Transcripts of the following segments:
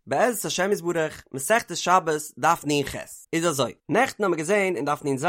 בעזרת השם יתברך, מסכת שבת, דף נ"ח. איז אזוי, נעכטן האמיר געזען אין דף נ"ז,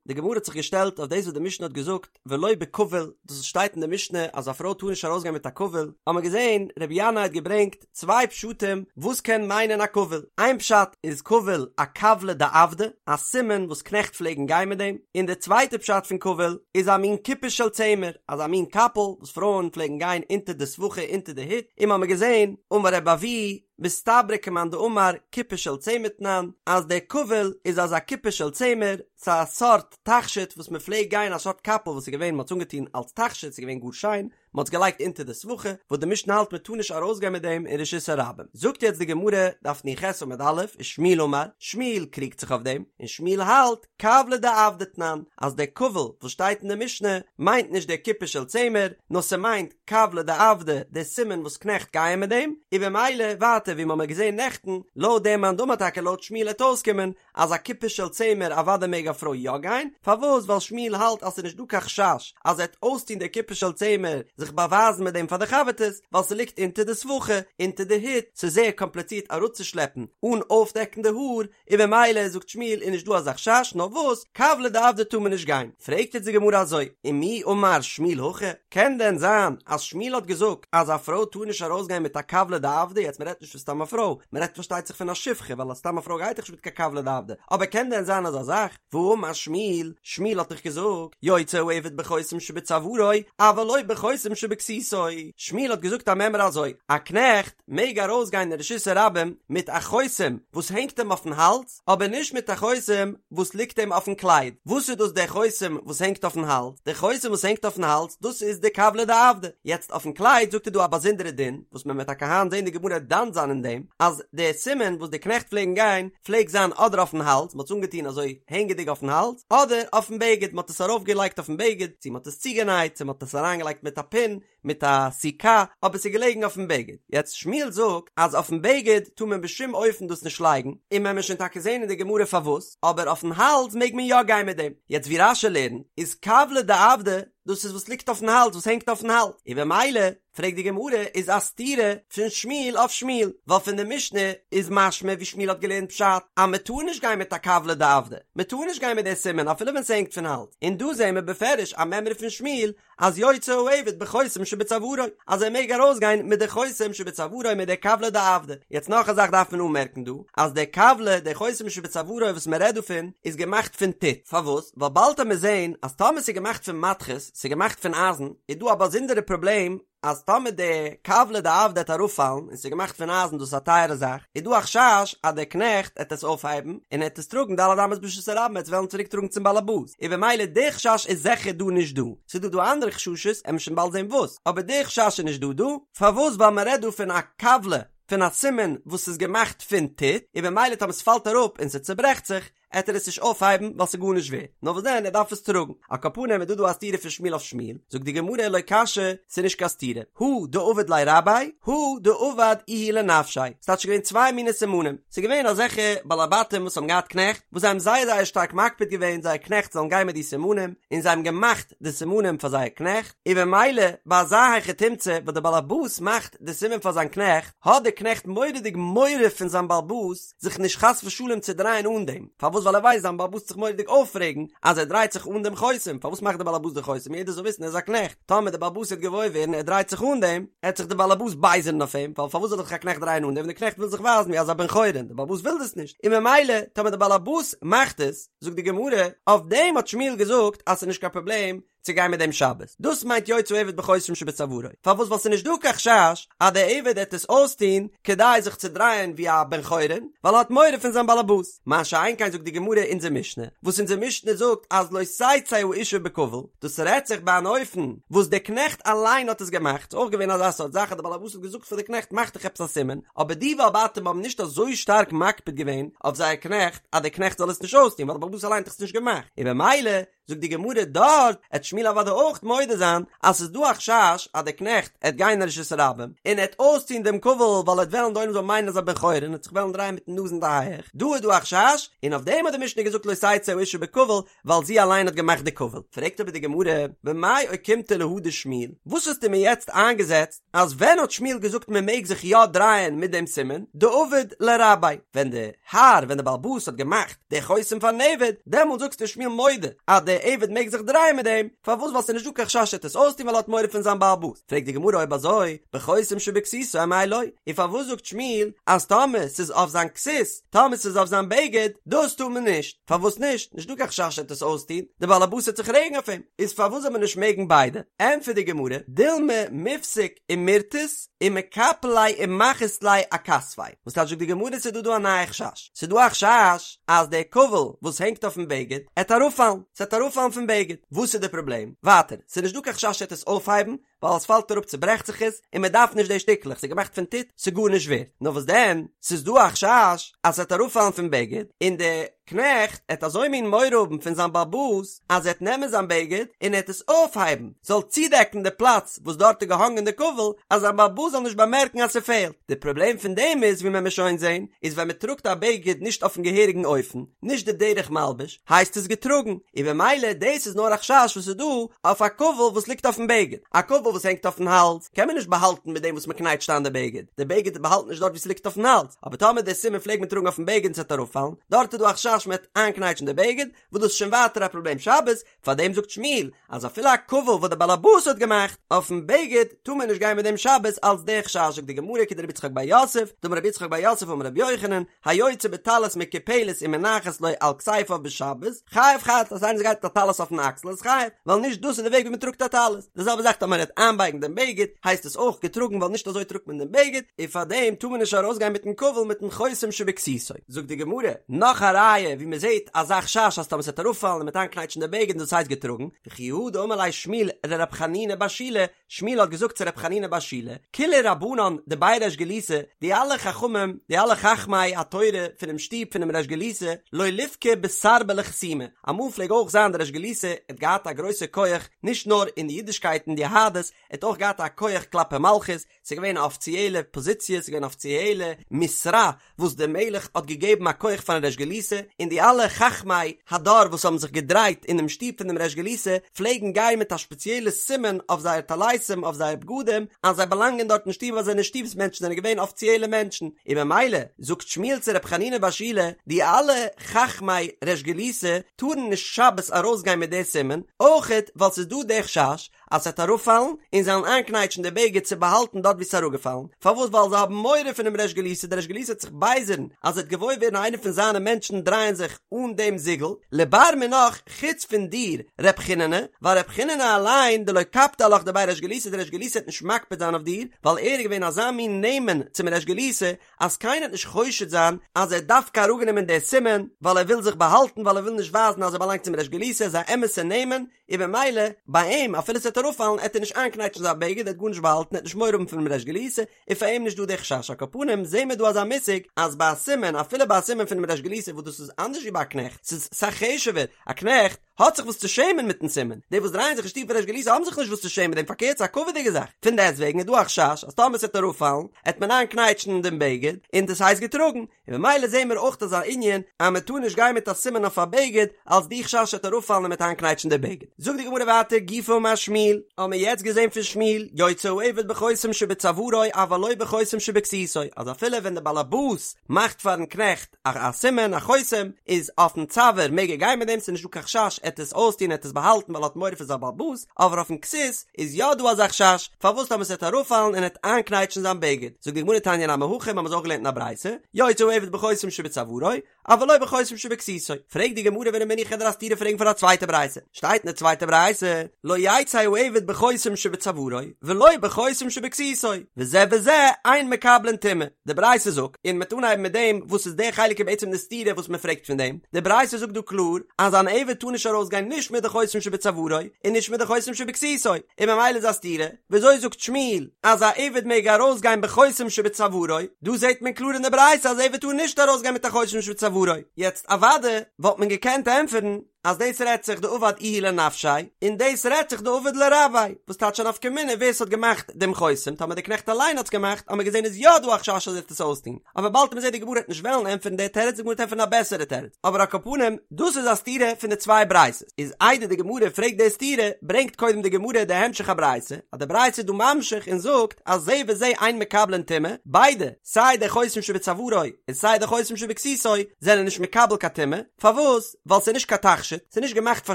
די גמרא האט זיך געשטעלט אויף דאס וואס די משנה האט געזאגט ולא בכבול, דאס וואס שטייט אין די משנה אז א פרוי טאר נישט ארויסגיין מיט א כבול, האמיר געזען רבי ינאי האט געברענגט צוויי פשטים וואס קען מיינען א כבול, איין פשט איז כבול א כבלא דעבדי, א סימן וואס קנעכט פלעגן גיין מיט דעם, און די צווייטע פשט פון כבול איז א מין כיפה של צמר, אזא מין קאפל וואס פרויען פלעגן גיין אונטער די סבכה אונטער די הוט, און מ'האמיר געזען, אמר רבי אבהו, מסתברא כמאן דאמר כיפה של צמר תנן, אז דער כבול איז אזא כיפה של צמר, ס'איז א סארט תכשיט וואס מ'פלעגט גיין א סארט קאפל וואס איז געווען מ'האט עס אנגעטון אלס תכשיט ס'איז געווען גאר שיין, מ'האט עס געלייגט אונטער די סבכה, וואס די משנה האלט מ'טאר נישט ארויסגיין מיט דעם אין רשות הרבים. זאגט יעצט די גמרא, דף נ"ח עמוד א', ושמואל אמר, שמואל קריגט זיך אויף דעם, און שמואל האלט, כבלא דעבדי תנן, אז דער כבול וואס שטייט אין די משנה מיינט נישט דער כיפה של צמר, נאר ס'מיינט כבלא דעבדי, דער סימן וואס קנעכט גייען מיט דעם, און במילא ווייטער ווי מ'האמיר געזען נעכטן, לויט דעם מאן דאמר טאקע לויט שמואל העט אויסקומען אז א כיפה של צמר אוודאי מעג א פרוי יא גיין, פארוואס ווייל שמואל האלט אז ס'איז נישט דא קיין חשש אז ער העט אויסטון דער כיפה של צמר זיך באווייזן מיט דעם פאר די חבר'טעס, ווייל ס'ליגט אונטער די סבכה, אונטער די הוט, ס'איז זייער קאמפליצירט אראפצושלעפן אן אויפדעקן די האר, און במילא זאגט שמואל איז נישט דא אזא חשש נאר וואס כבלא דעבדי טאר מען נישט גיין, פרעגט יעצט די גמרא אזוי, ומי אמר שמואל הכי, קען דען זיין אז שמואל האט געזאגט אז א פרוי טאר נישט ארויסגיין מיט א כבלא דעבדי, יעצט מען רעדט נישט פון סתם א פרוי, מען רעדט פארשטייט זיך פון א שפחה ווייל א סתם א פרוי גייט דאך נישט מיט קיין כבלא דעבדי, אבער קען דען זיין אזא זאך, והאמר שמואל, שמואל האט דאך געזאגט, יוצא העבד בחותם שבצווארו, אבל לא בחותם שבכסותו, שמואל האט געזאגט א מימרא אזוי, א קנעכט, מעג ארויסגיין אין רשות הרבים מיט א חותם וואס הענגט אים אויפן האלז, אבער נישט מיט א חותם וואס ליגט אים אויפן קלייד. וואס איז דאס דער חותם וואס הענגט אויפן האלז? דער חותם וואס הענגט אויפן האלז, דאס איז די כבלא דעבדי. יעצט אויפן קלייד זאגט ער דא א באזונדערע דין, וואס מען וועט טאקע היינט זען די גמרא דן זיין אין דעם, אז דער סימן וואס די קנעכט פלעגן גיין, פלעגט זיין אדער אויפן האלז, מען האט עס אנגעטון אזוי הענגעדיג אויפן האלז, אדער אויפן בגד, מען האט עס ארויפגעלייגט אויפן בגד, צו מען האט עס צוגענייט, צו מען האט עס אריינגעלייגט מיט א פין, מיט א סיכה, אבער ס'איז געלעגן אויפן בגד. יעצט שמואל זאגט אז אויפן בגד טאר מען בשום אופן דאס נישט לייגן, און מען וועט שוין טאקע זען אין די גמרא פארוואס, אבער אויפן האלז מעג מען יא גיין מיט דעם. יעצט ווי רש"י לערנט איז כבלא דעבדי, דאס איז וואס ליגט אויפן האלז, וואס הענגט אויפן האלז, און במילא פרעגט די גמרא איז א סתירה פון שמואל אויף שמואל, ווייל פון די משנה איז משמע ווי שמואל האט געלערנט פשט אז מען טאר נישט גיין מיט א כבלא דעבדי, מען טאר נישט גיין מיט די סימן אפילו ווען ס'הענגט פון האלז, און דא זעען מיר בפירוש א מימרא פון שמואל אז יוצא העבד בחותם שבצווארו, אז ער מעג ארויסגיין מיט די חותם שבצווארו מיט די כבלא דעבדי. יעצט נאך א זאך דארף מען אנמערקן דא, אז די כבלא, די חותם שבצווארו וואס מען רעדט דא פון, איז געמאכט פון טיט. פארוואס? ווייל באלד וועט מען זען אז טאמער ס'איז געמאכט פון מתכות, ס'איז געמאכט פון אייזן, איז דא א באזונדערע פראבלעם, אז טאמער די כבלא דעבדי עט אראפפאלן און ס'איז געמאכט פון אייזן דאס איז א טייערע זאך, איז דא א חשש אז דער קנעכט עט עס אויפהייבן און ער עט עס טראגן ד' אמות ברשות הרבים עט עס וועלן צוריק טראגן צום באלעבאס, און במילא די חשש איז זיכער דא נישט דא, ס'איז דא דא אנדערע חששות עמיר שוין באלד זען וואס, אבער די חשש איז נישט דא דא, פארוואס ווייל מ'רעדט דא פון א כבלא פון א סימן וואס איז געמאכט פון טיט, און במילא טאמער ס'פאלט אראפ און ס'צוברעכט זיך, עט ער עס נישט אויפהייבן ווייל ס'איז גארנישט ווערט, נאר וואס דען ער דארף עס טראגן. על כל פנים איז דא דא א סתירה פון שמואל אויף שמואל, זאגט די גמרא לא קשיא, ס'איז נישט קיין סתירה, הא דעבד ליה רביה, הא דעבד איהו לנפשיה, ס'טייטש ס'איז געווען צוויי מיני סימנים, ס'איז געווען אזעלכע בעלי בתים וואס האבן געהאט קנעכט, וואס זיי האבן זייער זייער שטארק מקפיד געווען זייער קנעכט זאלן גיין מיט די סימנים, און זיי האבן געמאכט די סימנים פאר זייער קנעכט, און במילא ביי אזא היכי תמצא וואס דער בעל הבית מאכט די סימן פאר זיין קנעכט, האט דער קנעכט מורא'דיג מורא פון זיין בעל הבית, זיך נישט חס ושלום צו דרייען אן דעם, פארוואס ווייל ער ווייסט זיין בעל הבית עט זיך מורא'דיג אויפרעגן אז ער דרייט זיך אן דעם חותם, פארוואס מאכט דער בעל הבית די חותם יעדער זאל וויסן ער איז א קנעכט, טאמער דער בעל הבית וועט געוואויר ווערן ער דרייט זיך אן דעם, עט זיך דער בעל הבית בייזערן אויף אים, ווייל פארוואס זאל זיך א קנעכט דרייען אן דעם ווען דער קנעכט וויל זיך ווייזן ווי אזא בן חורין, דער בעל הבית וויל דאס נישט, און ממילא טאמער דער בעל הבית מאכט עס, זאגט די גמרא, אויף דעם האט שמואל געזאגט אז ס'איז נישט קיין פראבלעם, צו גיין מיט דעם שבת, דאס מיינט יוצא העבד בחותם שבצווארו, פארוואס ווייל ס'איז נישט דא קיין חשש אז דער עבד עט עס אויסטוהן כדי זיך צו דרייען ווי א בן חורין, ווייל ער האט מורא פון זיין באלעבאס, מה שאין כן זאגט די גמרא אונזער משנה, וואס אונזער משנה זאגט אז לא תצא האשה בכבול, דאס רעדט זיך ביי אן אופן וואס דער קנעכט אליין האט עס געמאכט, ס'איז אויך געווען אזא סארט זאך אז דער באלעבאס האט געזאגט פאר די קנעכט מאך דיך עפעס א סימן, אבער די בעלי בתים האבן נישט אזוי שטארק מקפיד געווען אויף זייער קנעכט אז דער קנעכט זאל עס נישט אויסטוהן ווייל דער באלעבאס אליין האט דאך עס נישט געמאכט, און במילא. זאגט די גמרא דארט עט שמואל אוודאי אויך מודה זיין אז ס'איז דא א חשש אז דער קנעכט עט גיין אין רשות הרבים און עט אויסטון דעם כבול ווייל עט וועלן די עולם זאל מיינען אז ער בן חורין און עט זיך וועלן דרייען מיטן נאז אין די הייעך, דא איז דא א חשש און אויף דעם האט די משנה געזאגט לא תצא האשה בכבול ווייל זי אליין האט געמאכט די כבול. פרעגט אבער די גמרא, במאי אוקימתא להא דשמואל, וואס האסטו מיר יעצט איינגעזעצט אז ווען האט שמואל געזאגט מען מעג זיך יא דרייען מיט דעם סימן, דעבד ליה רביה, ווען די האר, ווען די בעל הבית האט געמאכט די חותם פארן עבד, דעמאלט זאגסטו שמואל מודה אז די עבד מעג זיך דרייען מיט דעם, פארוואס ווייל ס'איז נישט דא קיין חשש ער וועט עס אויסטון ווייל ער האט מורא פון זיין בעל הבית, פרעגט די גמרא אויב אזוי, בחותם שבכסותו אמאי לא, און פארוואס זאגט שמואל אז טאמער ס'איז אויף זיין כסות, טאמער ס'איז אויף זיין בגד, דאס טאר מען נישט, פארוואס נישט, נישט דא קיין חשש ער וועט עס אויסטון, די בעל הבית וועט זיך רעגן אויף אים, איז פארוואס זאל מען נישט מעגן ביידע, ענטפערט די גמרא, דילמא מיפסק ומירתת ומקפל ליה ומחית ליה אכתפיה, וואס טייטש זאגט די גמרא ס'איז דא דא א נייע חשש, ס'איז דא א חשש אז דער כבול וואס הענגט אויפן בגד עט אראפפאלן, ס'עט אראפפאלן פון בגד, וואס איז די פראבלעם? ווייטער, ס'איז נישט דא קיין חשש ער וועט עס אויפהייבן, ווייל עס פאלט אראפ צוברעכט זיך עס, און מען דארף נישט די שטיקלעך, ס'איז געמאכט פון טיט, ס'איז גארנישט ווערט. נאר וואס דען, ס'איז דא א חשש אז ס'וועט אראפפאלן פון בגד, און די קנעכט עט אזוי מין מורא האבן פון זיין בעל הבית, אז ער עט נעמען זיין בגד און ער עט עס אויפהייבן, זאל צודעקן די פלאץ וואס דארט איז געהאנגען די כבול, אז זיין בעל הבית זאל נישט באמערקן אז ס'פעלט. די פראבלעם פון דעם איז, ווי מען וועט שוין זען, איז ווען מען טראגט א בגד נישט אויפן געהעריגן אופן, נישט די דרך מלבוש, הייסט עס געטראגן, און במילא דאס איז נאר א חשש וואס איז דא אויף א כבול וואס ליגט אויפן בגד, א כבול וואס הענגט אויפן האלז קען מען נישט באהאלטן מיט דעם וואס מען קנייטשט איין די בגד, די בגד באהאלט נישט דארט וואו ס'ליגט אויפן האלז, אבער טאמער די סימן פלעגט מען טראגן אויפן בגד און ס'וועט אראפפאלן, דארט איז דא א חשש מ'וועט איינקנייטשן די בגד, וואס דאס איז שוין ווייטער א פראבלעם שבת, פארדעם זאגט שמואל אז אפילו א כבול וואס די בעל הבית האט געמאכט אויפן בגד טאר מען נישט גיין מיט דעם שבת אלץ די חשש זאגט די גמרא כדרבי יצחק בר יוסף דאמר רבי יצחק בר יוסף אמר רבי יוחנן היוצא בטלית מקופלת ומונחת לו על כתפיו בשבת חייב חטאת אז איינער גייט מיט א טלית אויפן אקסל איז חייב ווייל נישט דאס איז די וועג ווי מען טראגט א טלית די זעלבע זאך טאמער ער וועט איינבייגן דעם בגד הייסט עס אויך געטראגן ווייל נישט אזוי טראגט מען דעם בגד און פארדעם טאר מען נישט ארויסגיין מיטן כבול מיטן חותם שבכסותו. זאגט די גמרא, נאך א ראיה ווי מען זעט אזא חשש אז טאמער ס'וועט אראפפאלן און מ'וועט איינקנייטשן די בגד און דאס הייסט געטראגן, וכי הא דאמר ליה שמואל לרב חנינא בר שילא, שמואל האט געזאגט צו רב חנינא בר שילא, כולהו רבנן דבי ריש גלותא, די אלע חכמים, די אלע חכמי התורה פונעם שטוב פונעם ריש גלותא, לא ליפקו בסרבלי חתימי, אמאל פלעג אויך זיין די ריש גלותא האט געהאט א גרויסע כח נישט נאר אין די אידישקייט און די יהדות, ער האט אויך געהאט א כח כלפי מלכות, ס'איז געווען א אפיציעלע פאזיציע, ס'איז געווען א אפיציעלע משרה וואס דער מלך האט געגעבן א כח פארן ריש גלותא, און די אלע חכמי הדור וואס האבן זיך געדרייט אינעם שטוב פון דעם ריש גלותא פלעגן גיין מיט א שפעציעלע סימן אויף זייער טליתים, אויף זייער בגדים, אז זיי באלאנגען דארט אין שטוב, אז זיי זענען שטוב'ס מענטשן, זענען געווען אפיציעלע מענטשן, און במילא זאגט שמואל צו ר' חנינא בר שילא, די אלע חכמי ריש גלותא טארן נישט שבת ארויסגיין מיט די סימן, אויכעט ווייל ס'איז דא די חשש אז ס'וועט אראפפאלן, און זיי וועלן איינקנייטשן די בגד צו באהאלטן דארט וואו ס'איז אראפגעפאלן. פארוואס? ווייל זיי האבן מורא פונעם ריש גלותא, דער ריש גלותא וועט זיך בייזערן אז ער וועט געוואויר ווערן איינער פון זיינע מענטשן דרייען זיך אן דעם זיגל, לבר מינך, חוץ פון דיר, ר' חיננא, ווייל ר' חיננא אליין, דלא קפדי עלך דבי ריש גלותא, דער ריש גלותא וועט נישט מקפיד זיין אויף דיר, ווייל ער איז געווען אזא מין נאמן צום ריש גלותא, אז קיינער וועט נישט חושד זיין אז ער האט דווקא אראפגענומען די סימן ווייל ער וויל זיך באהאלטן, ווייל ער וויל נישט ווייזן אז ער באלאנגט צום ריש גלותא, ער איז א אמת'ע נאמן, און במילא ביי אים אפילו ס'וועט אראפפאלן עט ער נישט איינקנייטשן זיין בגד ער עט גארנישט באהאלטן ער עט נישט מורא האבן פונעם ריש גלותא און פאר אים נישט דא די חשש על כל פנים זעהן מיר דא אזא מושג אז ביי א סימן אפילו ביי א סימן פונעם ריש גלותא וואס דאס איז אנדערש ווי ביי א קנעכט ס'איז אסאך חשוב'ער א קנעכט האט זיך וואס צו שעמען מיטן סימן די וואס דרייען זיך אין שטוב פון ריש גלותא האבן זיך נישט וואס צו שעמען מיט דעם פארקערט ס'איז א כבוד'יגע זאך פון דעסטוועגן איז דא א חשש אז טאמער ס'וועט אראפפאלן עט מען איינקנייטשן דעם בגד און דאס הייסט געטראגן און במילא זעהן מיר אויך אזא ענין אז מען טאר נישט גיין מיט א סימן אויף א בגד אלס די חשש ס'עט אראפפאלן און מ'עט איינקנייטשן די בגד. זאגט די גמרא ווייטער גופא אמר שמואל, האבן מיר יעצט געזעהן פון שמואל, יוצא העבד בחותם שבצווארו אבל לא בחותם שבכסותו, אז אפילו ווען די באלעבאס מאכט פארן קנעכט א א סימן א חותם, איז אויפן צוואר מעג ער גיין מיט דעם ס'איז נישט דא קיין חשש עט עס אויסטון עט עס באהאלטן ווייל ער האט מורא פון זיין באלעבאס, אבער אויפן כסות איז יא דא אזא חשש, פארוואס טאמער ס'וועט אראפפאלן און עט איינקנייטשן זיין בגד? זאגט די גמרא תניא נמי הכי, מ'האמיר עס אויך געלערנט אין א ברייתא, יוצא העבד בחותם שבצווארו, אבל לא בחותם שבכסותו. פרעגט די גמרא ורמינהי כ'וועל דיר א סתירה פרעגן פון א צווייטע ברייתא, שטייט אין די צווייטע ברייתא, לא יצא העבד בחותם שבצווארו, ולא בחותם שבכסותו, וזה וזה אין מקבלין טומאה. די ברייתא זאגט, און מ'וועט אנהייבן מיט דעם וואס איז די חלק איז בעצם די סתירה וואס מ'פרעגט פון דעם, די ברייתא זאגט דא קלאר אז אן עבד טאר נישט ארויסגיין נישט מיט די חותם שבצווארו און נישט מיט די חותם שבכסותו, און ממילא איז א סתירה, וויאזוי זאגט שמואל אז א עבד מעג ארויסגיין בחותם שבצווארו, דא זעט מען קלאר אין די ברייתא אז עבד טאר נישט ארויסגיין מיט א חותם שבצווארו, יעצט אוודאי וואלט מען געקענט ענטפערן. אז דאס רעדט זיך דעבד איהו לנפשיה, און דאס רעדט זיך דעבד ליה רביה, וואס טייטש א נפקא מינה ווער ס'האט געמאכט דעם חותם, טאמער דער קנעכט אליין האט עס געמאכט, האמיר געזען איז יא דא א חשש אז ער וועט עס אויסטון, אבער באלד וועט מען זען די גמרא וועט נישט וועלן ענטפערן די תירוץ, די גמרא וועט ענטפערן א בעסערע תירוץ, אבער על כל פנים, דאס איז א סתירה פון די צוויי ברייתות, איז איידער די גמרא פרעגט די סתירה, ברענגט קודם די גמרא די המשך הברייתא, אז די ברייתא איז דא ממשיך און זאגט אז זה וזה אין מקבלין טומאה, ביידע, סיי די חותם שבצווארו און סיי די חותם שבכסותו, זענען נישט מקבל קיין טומאה, פארוואס? ווייל ס'איז נישט קיין תכשיט, ס'איז נישט געמאכט פאר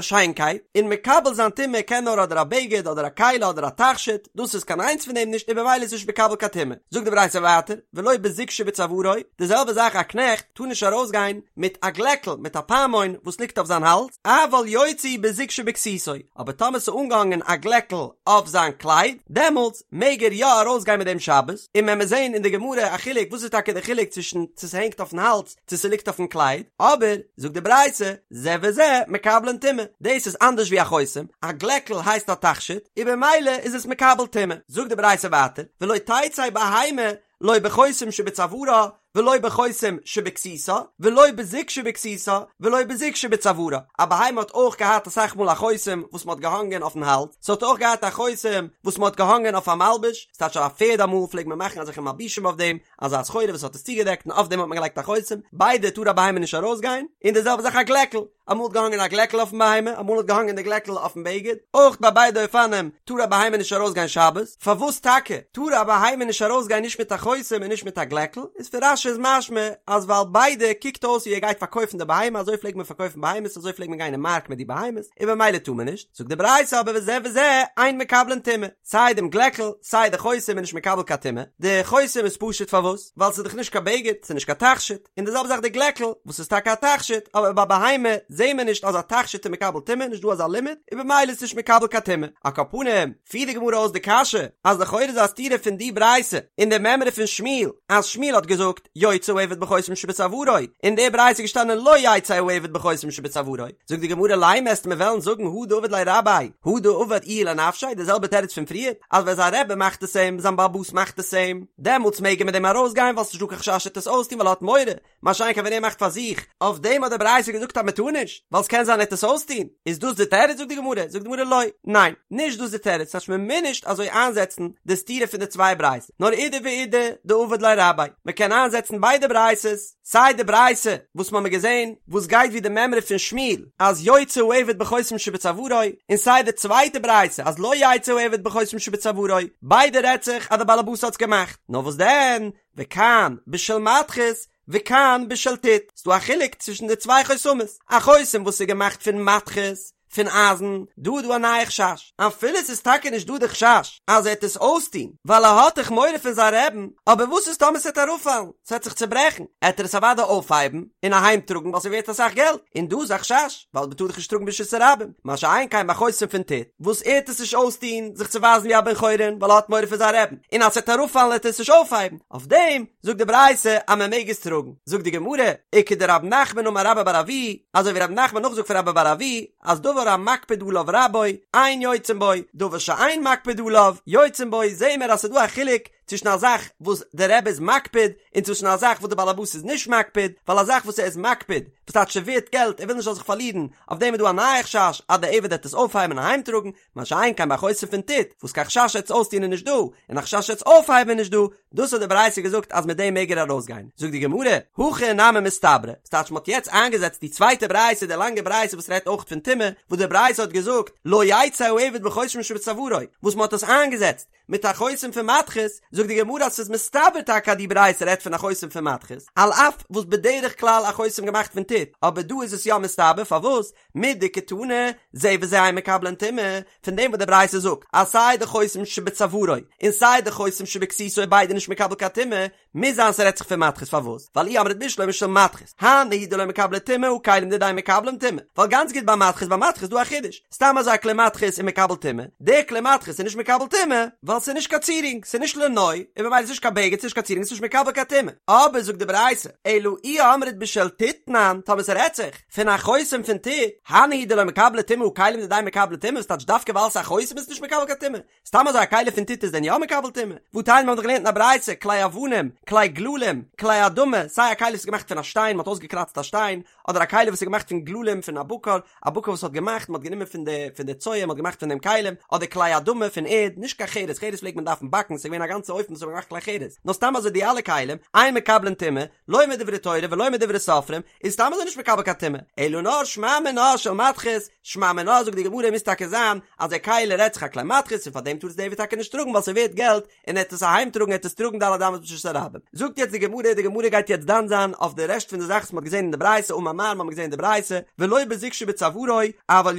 שיינקייט, און מקבל זיין טומאה קען נאר אדער א בגד אדער א כלי אדער א תכשיט, דאס איז קיין איינס פון דעם נישט און במילא איז נישט מקבל קיין טומאה. זאגט די ברייתא ווייטער, ולא בזוג שבצווארו, די זעלבע זאך א קנעכט טאר נישט ארויסגיין מיט א גלעקל, מיט א פעמון וואס ליגט אויף זיין האלז, אבל יוצא בזוג שבכסותו, אבער טאמער ס'איז אנגעהאנגען א גלעקל אויף זיין קלייד, דעמאלטס מעג ער יא ארויסגיין מיט דעם שבת, און מען וועט זען אין די גמרא א חילוק וואס איז טאקע די חילוק צווישן צו ס'הענגט אויפן האלז צו ס'ליגט אויפן קלייד, אבער, זאגט די ברייתא, זה וזה מקבלין טומאה, דאס איז אנדערש ווי א חותם, א גלעקל הייסט א תכשיט, און במילא איז עס מקבל טומאה. זאגט די ברייתא ווייטער, ולא תצא בהמה לא בחותם שבצווארה ולא בחותם שבכסותה ולא בזוג שבכסותה ולא בזוג שבצווארה, א בהמה האט אויך געהאט אסאך מאל א חותם וואס מ'האט געהאנגען אויפן האלז, ס'האט אויך געהאט א חותם וואס מ'האט געהאנגען אויף א מלבוש, ס'טייטש א פערד אמאל פלעגט מען מאכן אזעלכע מלבושים אויף דעם, אזא סחורה וואס האט עס צוגעדעקט און אויף דעם האט מען געלייגט א חותם, ביידע טאר א בהמה נישט ארויסגיין, און די זעלבע זאך א גלעקל, אמאל האט געהאנגען א גלעקל אויפן בהמה, אמאל האט געהאנגען די גלעקל אויפן בגד, אויך ביי ביידע אופנים טאר א בהמה נישט ארויסגיין שבת, פארוואס טאקע טאר א בהמה נישט ארויסגיין נישט מיט א חותם און נישט מיט א גלעקל, איז פון רש"י איז משמע אז ווייל ביידע קוקט אויס ווי ער גייט פארקויפן די בהמה, אזוי פלעגט מען פארקויפן בהמות, אזוי פלעגט מען גיין אין מארק מיט די בהמות, און במילא טאר מען נישט, זאגט די ברייתא אבער וזה וזה אין מקבלין טומאה. סיי דעם גלעקל, סיי די חותם איז נישט מקבל קיין טומאה, די חותם איז פשוט פארוואס? ווייל ס'איז דאך נישט קיין בגד, ס'איז נישט קיין תכשיט, און די זעלבע זאך די גלעקל, וואס איז טאקע א תכשיט, אבער ביי בהמה זעהן מיר נישט אז א תכשיט איז מקבל טומאה, נישט דא אזא לימוד, און במילא איז נישט מקבל קיין טומאה. על כל פנים, פירט די גמרא אויס די קשיא, אז לכאורה איז א סתירה פון די ברייתא און די מימרא פון שמואל, אז שמואל האט געזאגט, יוצא העבד בחותם שבצווארו, אין די ברייתא איז געשטאנען לא יצא העבד בחותם שבצווארו, זאגט די גמרא לימא וועסטו מיר וועלן זאגן הא דעבד ליה רביה, הא דעבד איהו לנפשיה, די זעלבע תירוץ פון פריער, אז ווען זיין רבי מאכט עס אים, זיין בעל הבית מאכט עס אים, דעמאלטס מעג ער מיט דעם ארויסגיין ווייל ס'נישט דא קיין חשש ער וועט עס אויסטון ווייל ער האט מורא, מה שאין כן ווען ער מאכט פאר זיך, אויף דעם האט די ברייתא געזאגט אז מען טאר נישט, ווייל ס'קען זיין ער וועט עס אויסטון, איז דאס די תירוץ זאגט די גמרא, זאגט די גמרא לא, ניין, נישט דאס די תירוץ, ס'טייטש מען מוז נישט אזוי איינזעצן די סתירה פון די צוויי ברייתות. נאר אידי ואידי דעבד ליה רביה, מען קען איינזעצן ביידע ברייתות, סיי די ברייתא וואס מ'האמיר געזען וואס גייט ווי די מימרא פון שמואל אז יוצא העבד בחותם שבצווארו, און סיי די צווייטע ברייתא אז לא יצא העבד בחותם שבצווארו, ביידע רעדט זיך אז די בעלעבאס האטס געמאכט, נאר וואס דען, וכאן בשל מתכות וכאן בשל טיט, ס'דא א חילוק צווישן די צוויי חותמות, א חותם וואס איז געמאכט פון מתכות, פון אייזן, דא איז דא א נייע חשש, אפילו ס'איז טאקע נישט דא די חשש אז ער העט עס אויסטוהן, ווייל ער האט דאך מורא פון זיין רעבן, אבער וואס איז טאמער ס'העט אראפפאלן, ס'העט זיך צוברעכן, העט ער עס אוודאי אויפהייבן און אהיים טראגן ווייל ס'ווערט אסאך געלט, און דא איז א חשש, ווייל מ'טאר דאך נישט טראגן ברשות הרבים, מה שאין כן ביי חותם פון טיט, וואס ער העט עס נישט אויסטוהן זיך צו ווייזן ווי א בן חורין ווייל ער האט מורא פון זיין רעבן, און אז ס'העט אראפפאלן העט ער עס נישט אויפהייבן, אויף דעם זאגט די ברייתא אז מען מעג עס טראגן, זאגט די גמרא, וכדרב נחמן אמר רבה בר אבוה, אזוי ווי רב נחמן נאכזאגט פון רבה בר אבוה, אז דבר המקפיד עליו רבו, אין יוצאין בו, דבר שאין מקפיד עליו, יוצאין בו, זעהן מיר אז ס'איז דא א חילוק צווישן א זאך וואס דער רבי איז מקפיד, און צווישן א זאך וואס דער בעל הבית איז נישט מקפיד, ווייל א זאך וואס ער איז מקפיד, וואס טייטש ס'ווערט געלט, ער וויל נישט זאל זיך פארלירן, אויף דעם איז דא א נייע חשש אז דער עבד וועט עס אויפהייבן און אהיימטראגן, מה שאין כן ביי חותם פון טיט, וואס קיין חשש ער וועט עס אויסטון איז נישט דא, און א חשש ער וועט עס אויפהייבן איז נישט דא, דאס האט די ברייתא געזאגט אז מיט דעם מעג ער ארויסגיין. זאגט די גמרא, הכי נמי מסתברא, ס'טייטש מ'האט יעצט איינגעזעצט די צווייטע ברייתא, די לאנגע ברייתא וואס רעדט אויך פון טומאה, וואס די ברייתא האט געזאגט, לא יצא העבד בחותם שבצווארו, וואס מ'האט עס איינגעזעצט מיט א חותם פון מתכות, זאגט די גמרא אז ס'איז מסתבר טאקע אז די ברייתא רעדט פון א חותם פון מתכות, על אף וואס בדרך כלל א חותם געמאכט פון טיט, אבער דא איז עס יא מסתבר, פארוואס? מדקתני, זה וזה אין מקבלין טומאה, פון דעם וואס די ברייתא זאגט אז סיי די חותם שבצווארו און סיי די חותם שבכסותו איז ביידע נישט מקבל קיין טומאה, מוז זיין ס'רעדט זיך פון מתכות פארוואס? ווייל אי אמרת בשלמא של מתכות, הני הוא דלא מקבלי טומאה הא כלים דידהו מקבלין טומאה, ווייל גאנץ גוט ביי מתכות ביי מתכות איז דא א חידוש, סתם אזוי א כלי מתכות איז מקבל טומאה, דער כלי מתכות איז נישט מקבל טומאה, ווייל. ווייל ס'איז נישט קיין צירונג, ס'איז נישט לנוי, און ממילא איז נישט קיין בגד, ס'איז נישט קיין צירונג, ס'איז נישט מקבל קיין טומאה. אבער זאגט די ברייתא, אלא אי אמרת בשל טיט תנן, טאמער ס'רעדט זיך פון א חותם פון טיט, הני הוא דלא מקבלי טומאה הא כלים דידהו מקבלי טומאה, וואס טייטש דווקא ווייל ס'איז א חותם איז עס נישט מקבל קיין טומאה? סתם אזוי א כלי פון טיט איז דען יא מקבל טומאה? והתניא מ'האט דאך געלערנט אין א ברייתא, כלי אבנים, כלי גללים, כלי אדמה, סיי א כלי וואס איז געמאכט פון א שטיין, מ'האט אויסגעקראצט א שטיין, אדער א כלי וואס איז געמאכט פון גללים פון א בקר, א בקר וואס האט געמאכט, מ'האט גענומען פון די פון די צואה, מ'האט געמאכט פון דעם כלים, אדער כלי אדמה פון ערד, נישט קיין חרס, חרס פלעגט מען דארפן באקן, ס'איז געווען א גאנצע אופן וואס מ'האט געמאכט כלי חרס, נאר סתם אזוי די אלע כלים, אין מקבלין טומאה, לא מדברי תורה ולא מדברי סופרים, איז סתם אזוי נישט מקבל קיין טומאה, אלא נאר שמע מינה של מתכת, שמע מינה זאגט די גמרא מוז טאקע זיין אז די כלי רעדט זיך א כלי מתכות און פאר דעם טאר עס די עבד טאקע נישט טראגן ווייל ס'ווערט געלט און ער העט עס אהיים טראגן ער העט עס טראגן ד' אמות ברשות הרבים. זאגט יעצט די גמרא, די גמרא גייט יעצט דן זיין אויף די רעשט פון די זאכן וואס מ'האט געזען אין די ברייתא אמר מר מ'האט געזען אין די ברייתא ולא בזוג שבצווארו אבל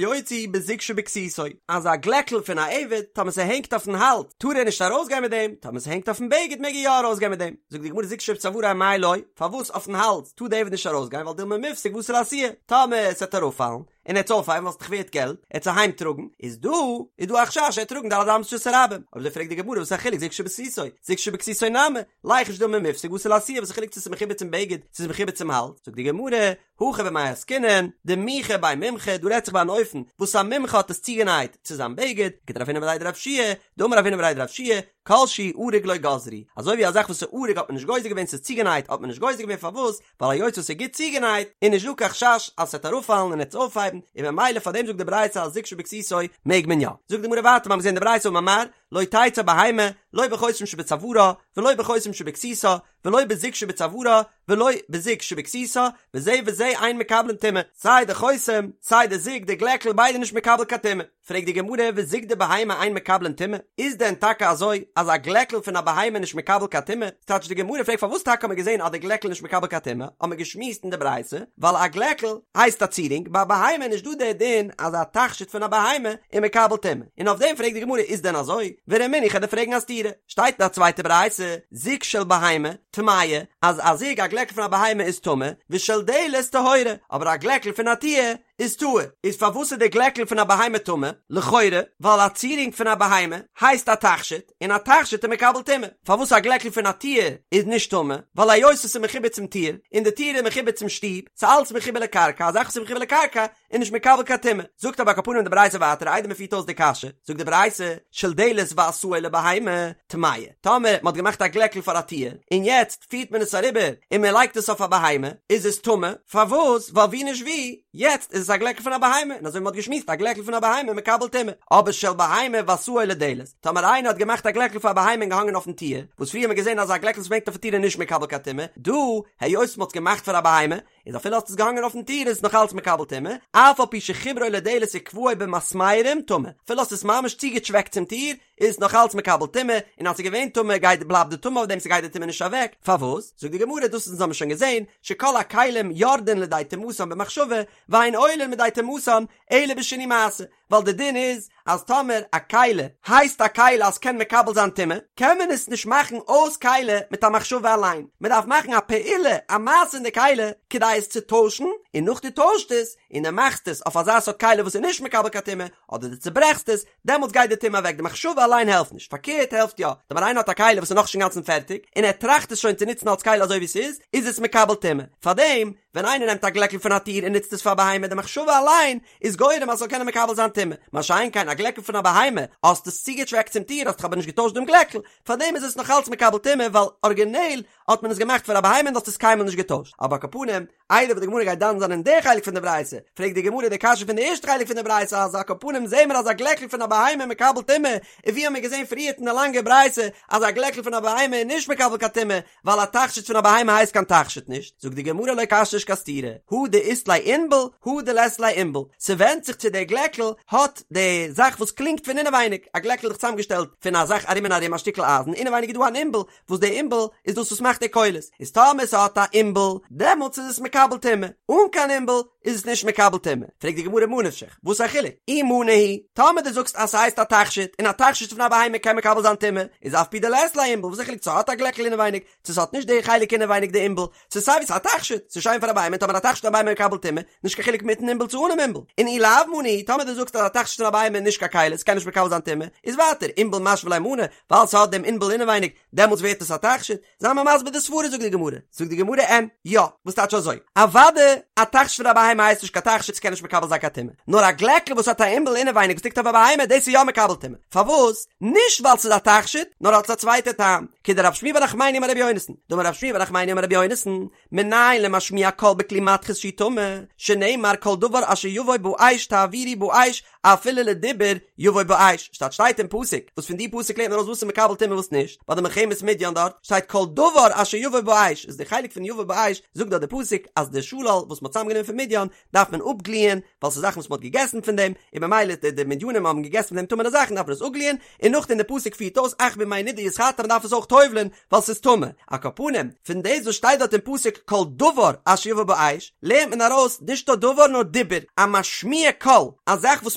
יוציא בזוג שבכסותו אז א גלעקל פון א עבד טאמער ס'הענגט אויפן האלז טאר ער נישט ארויסגיין מיט דעם, טאמער ס'הענגט אויפן בגד מעג ער יא ארויסגיין מיט דעם. זאגט די גמרא זוג שבצווארו אמאי לא, פארוואס אויפן האלז טאר די עבד נישט ארויסגיין ווייל דילמא מיפסק ואתי לאתויי, טאמער ס'וועט אראפפאלן און ער העט עס אויפהייבן ווייל ס'איז דאך ווערט געלט, ער העט עס אהיים טראגן, איז דא איז דא א חשש ער העט טראגן ד' אמות ברשות הרבים, אויב אזוי פרעגט די גמרא וואס איז א חילוק זוג שבכסותו, זוג שבכסותו נמי, ליחוש דילמא מיפסק ואתי לאתויי, וואס איז חילוק צו ס'איז מחובר צום בגד צו ס'איז מחובר צום האלז, זאגט די גמרא, הכא במאי עסקינן, דמיחא ביה מומחא, דא רעדט זיך ביי אן אופן וואס א מומחה האט עס צוגענייט צו זיין בגד, כדרב הונא בריה דרב יהושע, דאמר רב הונא בריה דרב יהושע, כל שהוא אריג לא גזרו, אזוי ווי א זאך וואס איז אריג האט מען נישט גוזר געווען ס'איז צוגענייט האט מען נישט גוזר געווען פארוואס ווייל היות וואס ס'איז גוט צוגענייט איז נישט דא קיין חשש אז ס'וועט אראפפאלן און ער וועט עס אויפהייבן און ממילא פארדעם זאגט די ברייתא אז זוג שבכסותו מעג מען יא. זאגט די גמרא ווייטער מ'האט געזען די ברייתא אמר מר לא תצא בהמה לא בחותם שבצווארה ולא בחותם שבכסותה ולא בזוג שבצווארה ולא בזוג שבכסותה וזה וזה אין מקבלין טומאה סיי די חותם סיי די זוג די גלעקל ביידע נישט מקבל קיין טומאה. פרעגט די גמרא וזוג דבהמה אין מקבלין טומאה, איז דען טאקע אזוי אז א גלעקל פון א בהמה איז נישט מקבל קיין טומאה? ס'טייטש די גמרא פרעגט פארוואס טאקע האט מען געזען אז די גלעקל איז נישט מקבל קיין טומאה, האט מען געשמועסט אין די ברייתא, ווייל א גלעקל הייסט א צירונג, ביי א בהמה איז נישט דא דער דין אז א תכשיט פון א בהמה איז מקבל טומאה, און אויף דעם פרעגט די גמרא איז דען אזוי? ורמינהי איך וועל דיר פרעגן א סתירה, שטייט אין א צווייטע ברייתא, זוג של בהמה, טמאה, אז א זוג א גלעקל פון א בהמה איז טמא, ושל דלת טהורה, אבער א גלעקל פון א טיר איז טהור, איז פארוואס איז די גלעקל פון א בהמה טמא? לכאורה ווייל א צירונג פון א בהמה הייסט א תכשיט, און א תכשיט איז מקבל טומאה. פארוואס א גלעקל פון א טיר איז נישט טמא? ווייל היות עס איז מחובר צום טיר, און די טיר איז מחובר צום שטוב, ס'איז אלץ מחובר לקרקע, א זאך וואס איז מחובר לקרקע איז נישט מקבל קיין טומאה. זאגט אבער על כל פנים די ברייתא ווייטער איידער מ'פירט אויס די קשיא, זאגט די ברייתא, של דלת ועשאו לבהמה, טמאה. טאמער מ'האט געמאכט א גלעקל פאר א טיר, און יעצט פירט מען עס אריבער און מען לייגט עס אויף א בהמה, איז עס טמא, פארוואס? ווייל ווי נישט ווי, יעצט איז עס א גלעקל פון א בהמה, און אזוי ווי מען האט געשמועסט א גלעקל פון א בהמה מקבל טומאה, אבער של בהמה ועשאו לדלת, טאמער איינער האט געמאכט א גלעקל פאר א בהמה און געהאנגען אויפן טיר, וואס פריער האט מען געזען אז א גלעקל וואס מ'הענגט אויפן טיר איז נישט מקבל קיין טומאה, דא, היות מען האט עס געמאכט פאר א בהמה, איז אפילו האסט עס געהאנגען אויפן טיר איז עס נאך אלץ מקבל טומאה, אף על פי שחיברו לדלת וקבעו במסמרים טמא, אפילו האסט עס ממש צוגעטשוועקט צום טיר, איז עס נאך אלץ מקבל טומאה, און אז ס'איז געווען טמא גייט בלייבט די טומאה אויף דעם ס'גייט די טומאה נישט אוועק, פארוואס? זאגט די גמרא דאס אונז האבן שוין געזען, שכל הכלים יורדין לידי טומאתן במחשבה, ואין עולין מידי טומאתן אלא בשינוי מעשה, ווייל די דין איז אז טאמער א כלי הייסט א כלי אז ס'קען מקבל זיין טומאה, קען מען עס נישט מאכן אויס כלי מיט א מחשבה אליין, מען דארף מאכן א פעולה, א מעשה אין די כלי, כדי עס צו טוישן, און נאך דו טוישט עס, און דו מאכסט עס אויף אזא סארט כלי וואס איז נישט מקבל קיין טומאה, אדער דו צוברעכסט עס, דעמאלטס גייט די טומאה אוועק, די מחשבה אליין העלפט נישט, פארקערט העלפט יא, טאמער איינער האט א כלי וואס איז נאכנישט אינגאנצן פערטיג, און ער טראכט עס שוין צו נוצן אלס כלי אזוי ווי ס'איז, איז עס מקבל טומאה, פארדעם ווען איינער נעמט א גלעקל פון א טיר און נוצט עס פאר בהמה די מחשבה אליין איז גורם אז ס'זאל קענען מקבל זיין טומאה, מה שאין כן א גלעקל פון א בהמה, האסט עס צוגעטשוועקט צום טיר האסט דאך אבער נישט געטוישט דעם גלעקל, פארדעם איז עס נאך אלץ מקבל טומאה ווייל ארגינעל האט מען עס געמאכט פאר א בהמה און דו האסט עס קיינמאל נישט געטוישט, אבער על כל פנים, איידער וואס די גמרא גייט דן זיין אין די חלק פון די ברייתא, פרעגט די גמרא די קשיא פון די ערשטע חלק פון די ברייתא אז על כל פנים זעהן מיר אז א גלעקל פון א בהמה איז מקבל טומאה, און ווי האמיר געזעהן פריערט אין די לאנגע ברייתא אז א גלעקל פון א בהמה איז נישט מקבל קיין טומאה, ווייל א תכשיט פון א בהמה הייסט קיין תכשיט נישט, זאגט די גמרא לא קשיא נישט קיין סתירה, הא דאית ליה עינבל הא דלית ליה עינבל, ס'ווענדט זיך צו דער גלעקל האט די זאך וואס קלינגט פון אינעווייניג, א גלעקל איז דאך צוזאמגעשטעלט פון א זאך ארום און ארום א שטיקל אייזן, אינעווייניג איז דא אן עינבל וואס די עינבל איז דאס וואס מאכט די קולות, איז טאמער ס'האט א עינבל דעמאלטס איז עס מקבל טומאה, אן קיין עינבל. איז עס נישט מקבל טומאה. פרעגט די גמרא מה נפשך, וואס איז א חילוק? אי מנא הוא, טאמער דו זאגסט אז ס'הייסט א תכשיט, און א תכשיט פון א בהמה קען מקבל זיין טומאה, איז אף פי דלית ליה עינבל, וואס איז א חילוק צו ס'האט א גלעקל אינעווייניג, צו ס'האט נישט די חלק אינעווייניג די עינבל, ס'איז סיי ווי ס'איז א תכשיט, ס'איז שיין פאר א בהמה, און טאמער א תכשיט פון א בהמה מקבל טומאה, נישט קיין חילוק מיטן עינבל צו אנעם עינבל. און אי לאו מנא הוא, טאמער דו זאגסט אז א תכשיט פון א בהמה איז נישט קיין כלי, ס'קען נישט מקבל זיין טומאה, איז ווייטער, עינבל משוי ליה מנא, ווייל ס'האט דעם עינבל אינעווייניג, דעמאלטס ווערט עס א תכשיט. זיי מיר מסביר די סברה זאגט די גמרא, זאגט די גמרא אין, יא, וואס טייטש אזוי? אוודאי א תכשיט פון א בהמה הייסט נישט קיין תכשיט ס'קען נישט מקבל זיין קיין טומאה, נאר א גלעקל וואס האט א עינבל אינעווייניג וואס ליגט אויף א בהמה דאס איז יא מקבל טומאה, פארוואס? נישט ווייל ס'איז א תכשיט, נאר אלס א צווייטע טעם, כדרב שמואל בר נחמני אמר רבי יונתן, דאמר רב שמואל בר נחמני אמר רבי יונתן, מנין למשמיע קול בכלי מתכות שהוא טמא, שנאמר כל דבר אשר יבוא באש תעבירו באש אפילו לדיבור יבוא באש, שטייט שטייט אין פסוק, וואס פון די פסוק לערנט מען ארויס וואס איז מקבל טומאה וואס נישט, ביי די מלחמת מדין דארט שטייט כל דבר אשר יבוא באש, איז די חלק פון יבוא באש זאגט דארט די פסוק אז די שלל וואס מ'האט צוזאמגענומען פון מדין דארף מען אפגליען, ווייל ס'איז זאכן וואס מ'האט געגעסן פון דעם, און במילא די די מדינים האבן געגעסן פון דעם טמא'נע זאכן דארף מען עס אפגליען, און נאכדעם די פסוק פירט אויס אך בימי נדה יתחטא מ'דארף עס אויך טובל'ען ווייל ס'איז טמא, על כל פנים, פון דאס וואס שטייט דארט אין פסוק כל דבר אשר יבוא באש, לערנט מען ארויס נישט נאר דבר נאר דיבור, א משמיע קול, א זאך וואס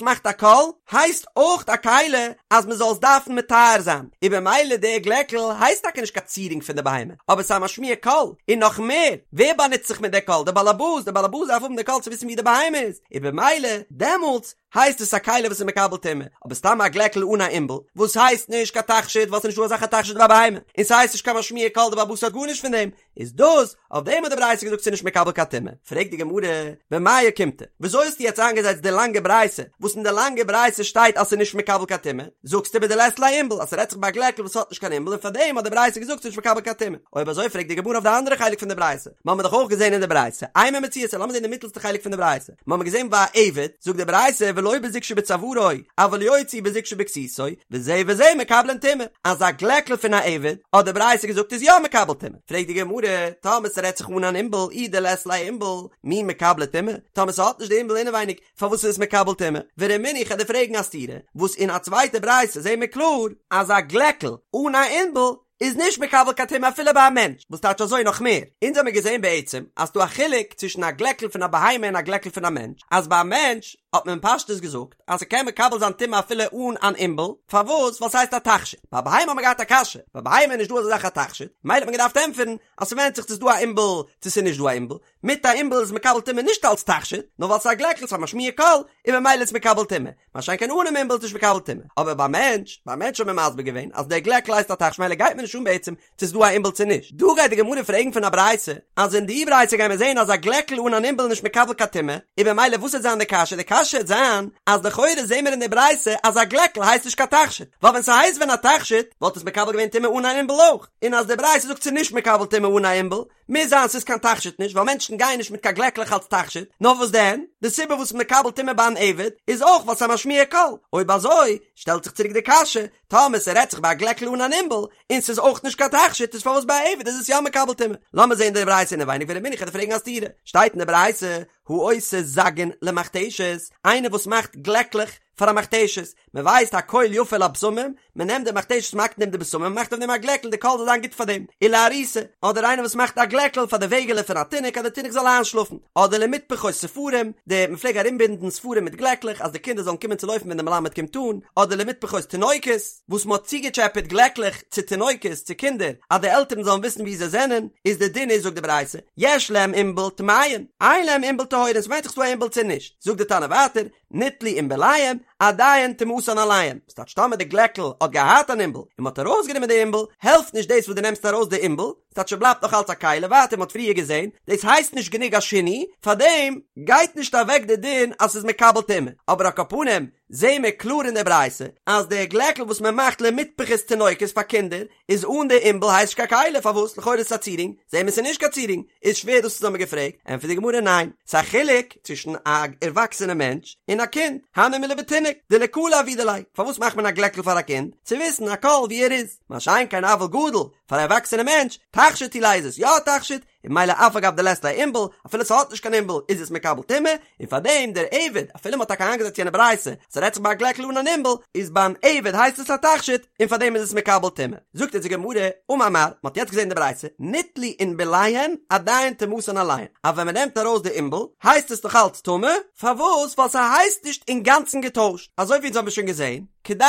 מאכט א קול, הייסט אויך א כלי אז מ'זאל עס דארפן מטהר זיין, און במילא די גלעקל הייסט טאקע נישט קיין צירונג פון די בהמה, אבער ס'איז א משמיע קול, און נאך מער, ווער באנוצט זיך מיט די קול? די באלעבאס, די באלעבאס דארף האבן די קול צו וויסן ווי די בהמה איז, און במילא דעמאלטס הייסט עס א כלי וואס איז מקבל טומאה, אבער סתם א גלעקל אן א עינבל, וואס הייסט נישט קיין תכשיט ווייל ס'איז נישטא אזא זאך א תכשיט ביי א בהמה, און ס'הייסט נישט קיין משמיע קול די באלעבאס האט גארנישט פון דעם, איז דאס, אויף דעם האט די ברייתא געזאגט ס'איז נישט מקבל קיין טומאה. פרעגט די גמרא, במאי אוקימתא, וויאזוי האסטו יעצט איינגעזעצט די לאנגע ברייתא, וואס אין די לאנגע ברייתא שטייט אז ס'איז נישט מקבל קיין טומאה, זאגסטו בדלית ליה עינבל אז ס'רעדט זיך ביי א גלעקל וואס האט נישט קיין עינבל און פארדעם האט די ברייתא געזאגט ס'איז נישט מקבל קיין טומאה. אויב אזוי פרעגט די גמרא אויף די אנדערע חלק פון די ברייתא, מ'האמיר דאך אויך געזען אין די ברייתא, אימא מציעתא, לאמיר זען די מיטלסטע חלק פון די ברייתא, מ'האמיר געזען ביי א עבד, זאגט די ברייתא ולא בזוג שבצווארו, אבל יוציא בזוג שבכסותו, וזה וזה מקבלין טומאה, אז א גלעקל פון א עבד, האט די ברייתא געזאגט איז יא מקבל טומאה. פרעגט די גמרא, טאמער ס'רעדט זיך אן אן עינבל, אי דלית ליה עינבל, מי מקבלי טומאה? טאמער ס'האט נישט די עינבל אינעווייניג, פארוואס איז עס מקבל טומאה? ורמינהו איך וועל דיר פרעגן א סתירה, וואס אין א צווייטע ברייתא זעהן מיר קלאר, אז א גלעקל אן א עינבל איז נישט מקבל קיין טומאה אפילו ביי א מענטש, וואס טייטש אזוי נאך מער? אונז האמיר געזעהן בעצם אז ס'דא א חילוק צווישן א גלעקל פון א בהמה און א גלעקל פון א מענטש, אז ביי א מענטש האט מען פשטות געזאגט אז ס'קען מקבל זיין טומאה אפילו אן אן עינבל, פארוואס? ווייל ס'הייסט א תכשיט. ביי א בהמה האט מען געהאט א קשיא, ביי בהמה איז נישט דא אזא זאך א תכשיט, מילא האט מען געדארפט ענטפערן אז ס'ווענדט זיך צו ס'איז דא א עינבל צו ס'איז נישט דא א עינבל, מיט א עינבל איז מקבל טומאה נישט אלץ תכשיט, נאר ווייל ס'איז א גלעקל, ס'איז א משמיע קול, און ממילא איז מקבל טומאה. מה שאין כן אנעם עינבל איז נישט מקבל טומאה. אבער ביי מענטש, ביי מענטש האט מען מסביר געווען אז דער גלעקל הייסט א תכשיט מילא גייט מיר נישט אן בעצם צו ס'איז דא א עינבל צו נישט. דא גייט די גמרא פרעגן פון א ברייתא, אז אין די ברייתא גייען מיר זען אז א גלעקל אן אן עינבל איז נישט מקבל קיין טומאה, און במילא וואס וועט זיין די קשיא? די קשיא וועט זיין אז לכאורה זעהן מיר אין די ברייתא אז א גלעקל הייסט נישט קיין תכשיט, ווייל ווען ס'הייסט ווען א תכשיט וואלט עס מקבל געווען טומאה אן אן עינבל אויך, און אז די ברייתא זאגט ס'איז נישט מקבל טומאה אן א עינבל, מוז זיין ס'איז קיין תכשיט נישט ווייל מענטשן גייען נישט מיט קיין גלעקלעך אלס תכשיט, נאר וואס דען? די סיבה וואס מקבל טומאה ביי אן עבד איז אויך ווייל ס'איז א משמיע קול, אויב אזוי שטעלט זיך צוריק די קשיא, טאמער ס'רעדט זיך ביי א גלעקל אן אן עינבל, און ס'איז אויך נישט קיין תכשיט איז פארוואס ביי א עבד איז עס יא מקבל טומאה? לאמיר זעהן די ברייתא אינעווייניג ורמינהו כ'וועל דיר פרעגן א סתירה, שטייט אין די ברייתא העושה זגין למכתשת, איינער וואס מאכט גלעקלעך פאר א מכתשת, מען ווייסט הקול יפה לבשמים, מען נעמט די מכתשת מ'האקט אין דעם די בשמים מען מאכט אויף דעם א גלעקל די קול זאל זיין גוט פאר דעם, ולעריסה, אדער איינער וואס מאכט א גלעקל פאר די וועגעלע פון א תינוק אז די תינוק זאל איינשלאפן, אדער למטפחות ספרים, די מען פלעג ארומבינדן ספרים מיט גלעקלעך אז די קינדער זאלן קומען צו לויפן ווען די מלמד קומט אן, אדער למטפחות תינוקות, וואס מען האט צוגעטשעפעט גלעקלעך צו תינוקות, צו קינדער, אז די עלטערן זאלן וויסן וואו זיי זענען, איז די דין איז זאגט די ברייתא, יש להם עינבל טמאין, אין להם עינבל טהורין, ס'ווענדט זיך ס'דא א עינבל צו נישט, זאגט די תנא ווייטער, ניטלו עינבליהם, עדיין טומאתן עליהם, ס'טייטש טאמער די גלעקל האט געהאט אן עינבל, און מ'האט ארויסגענומען די עינבל, העלפט נישט דאס וואס דו נעמסט ארויס די עינבל, ס'טייטש ס'בלייבט נאך אלץ א כלי, ווייטער מ'האט פריער געזען, דאס הייסט נישט גענוג א שינוי, פארדעם גייט נישט אוועק די דין אז ס'איז מקבל טומאה, אבער על כל פנים זעהן מיר קלאר אין די ברייתא אז די גלעקל וואס מ'מאכט למטפחות תינוקות פאר קינדער איז אן די עינבל הייסט נישט קיין כלי, פארוואס? לכאורה איז עס א צירונג, זעהן מיר ס'איז נישט קיין צירונג, איז שווער דאס וואס האמיר געפרעגט, ענטפערט די גמרא ניין, ס'איז א חילוק צווישן א ערוואקסענע מענטש און א קינד, הני מילי בתינוק, דלקלא עבידי ליה, פארוואס מאכט מען א גלעקל פאר א קינד? צו וויסן א קול ווי ער איז, מה שאין כן אבל גדול, פאר א ערוואקסענע מענטש, תכשיט הוא ליה איז עס יא א תכשיט, און ממילא אף על גב דלית ליה עינבל, אפילו ס'האט נישט קיין עינבל איז עס מקבל טומאה, און פארדעם דער עבד, אפילו מ'האט טאקע איינגעזעצט יענע ברייתא, ס'רעדט זיך ביי א גלעקל אן אן עינבל, איז ביים עבד הייסט עס א תכשיט, און פארדעם איז עס מקבל טומאה. זאגט אונז די גמרא, אמר מר, מ'האט יעצט געזען די ברייתא, ניטלו עינבליהן עדיין טומאתן עליהן, אז ווען מ'נעמט ארויס די עינבל, הייסט עס נאך אלץ טמא, פארוואס? ווייל ס'הייסט נישט אינגאנצן געטוישט, אזוי ווי אונז האבן שוין געזען, כדי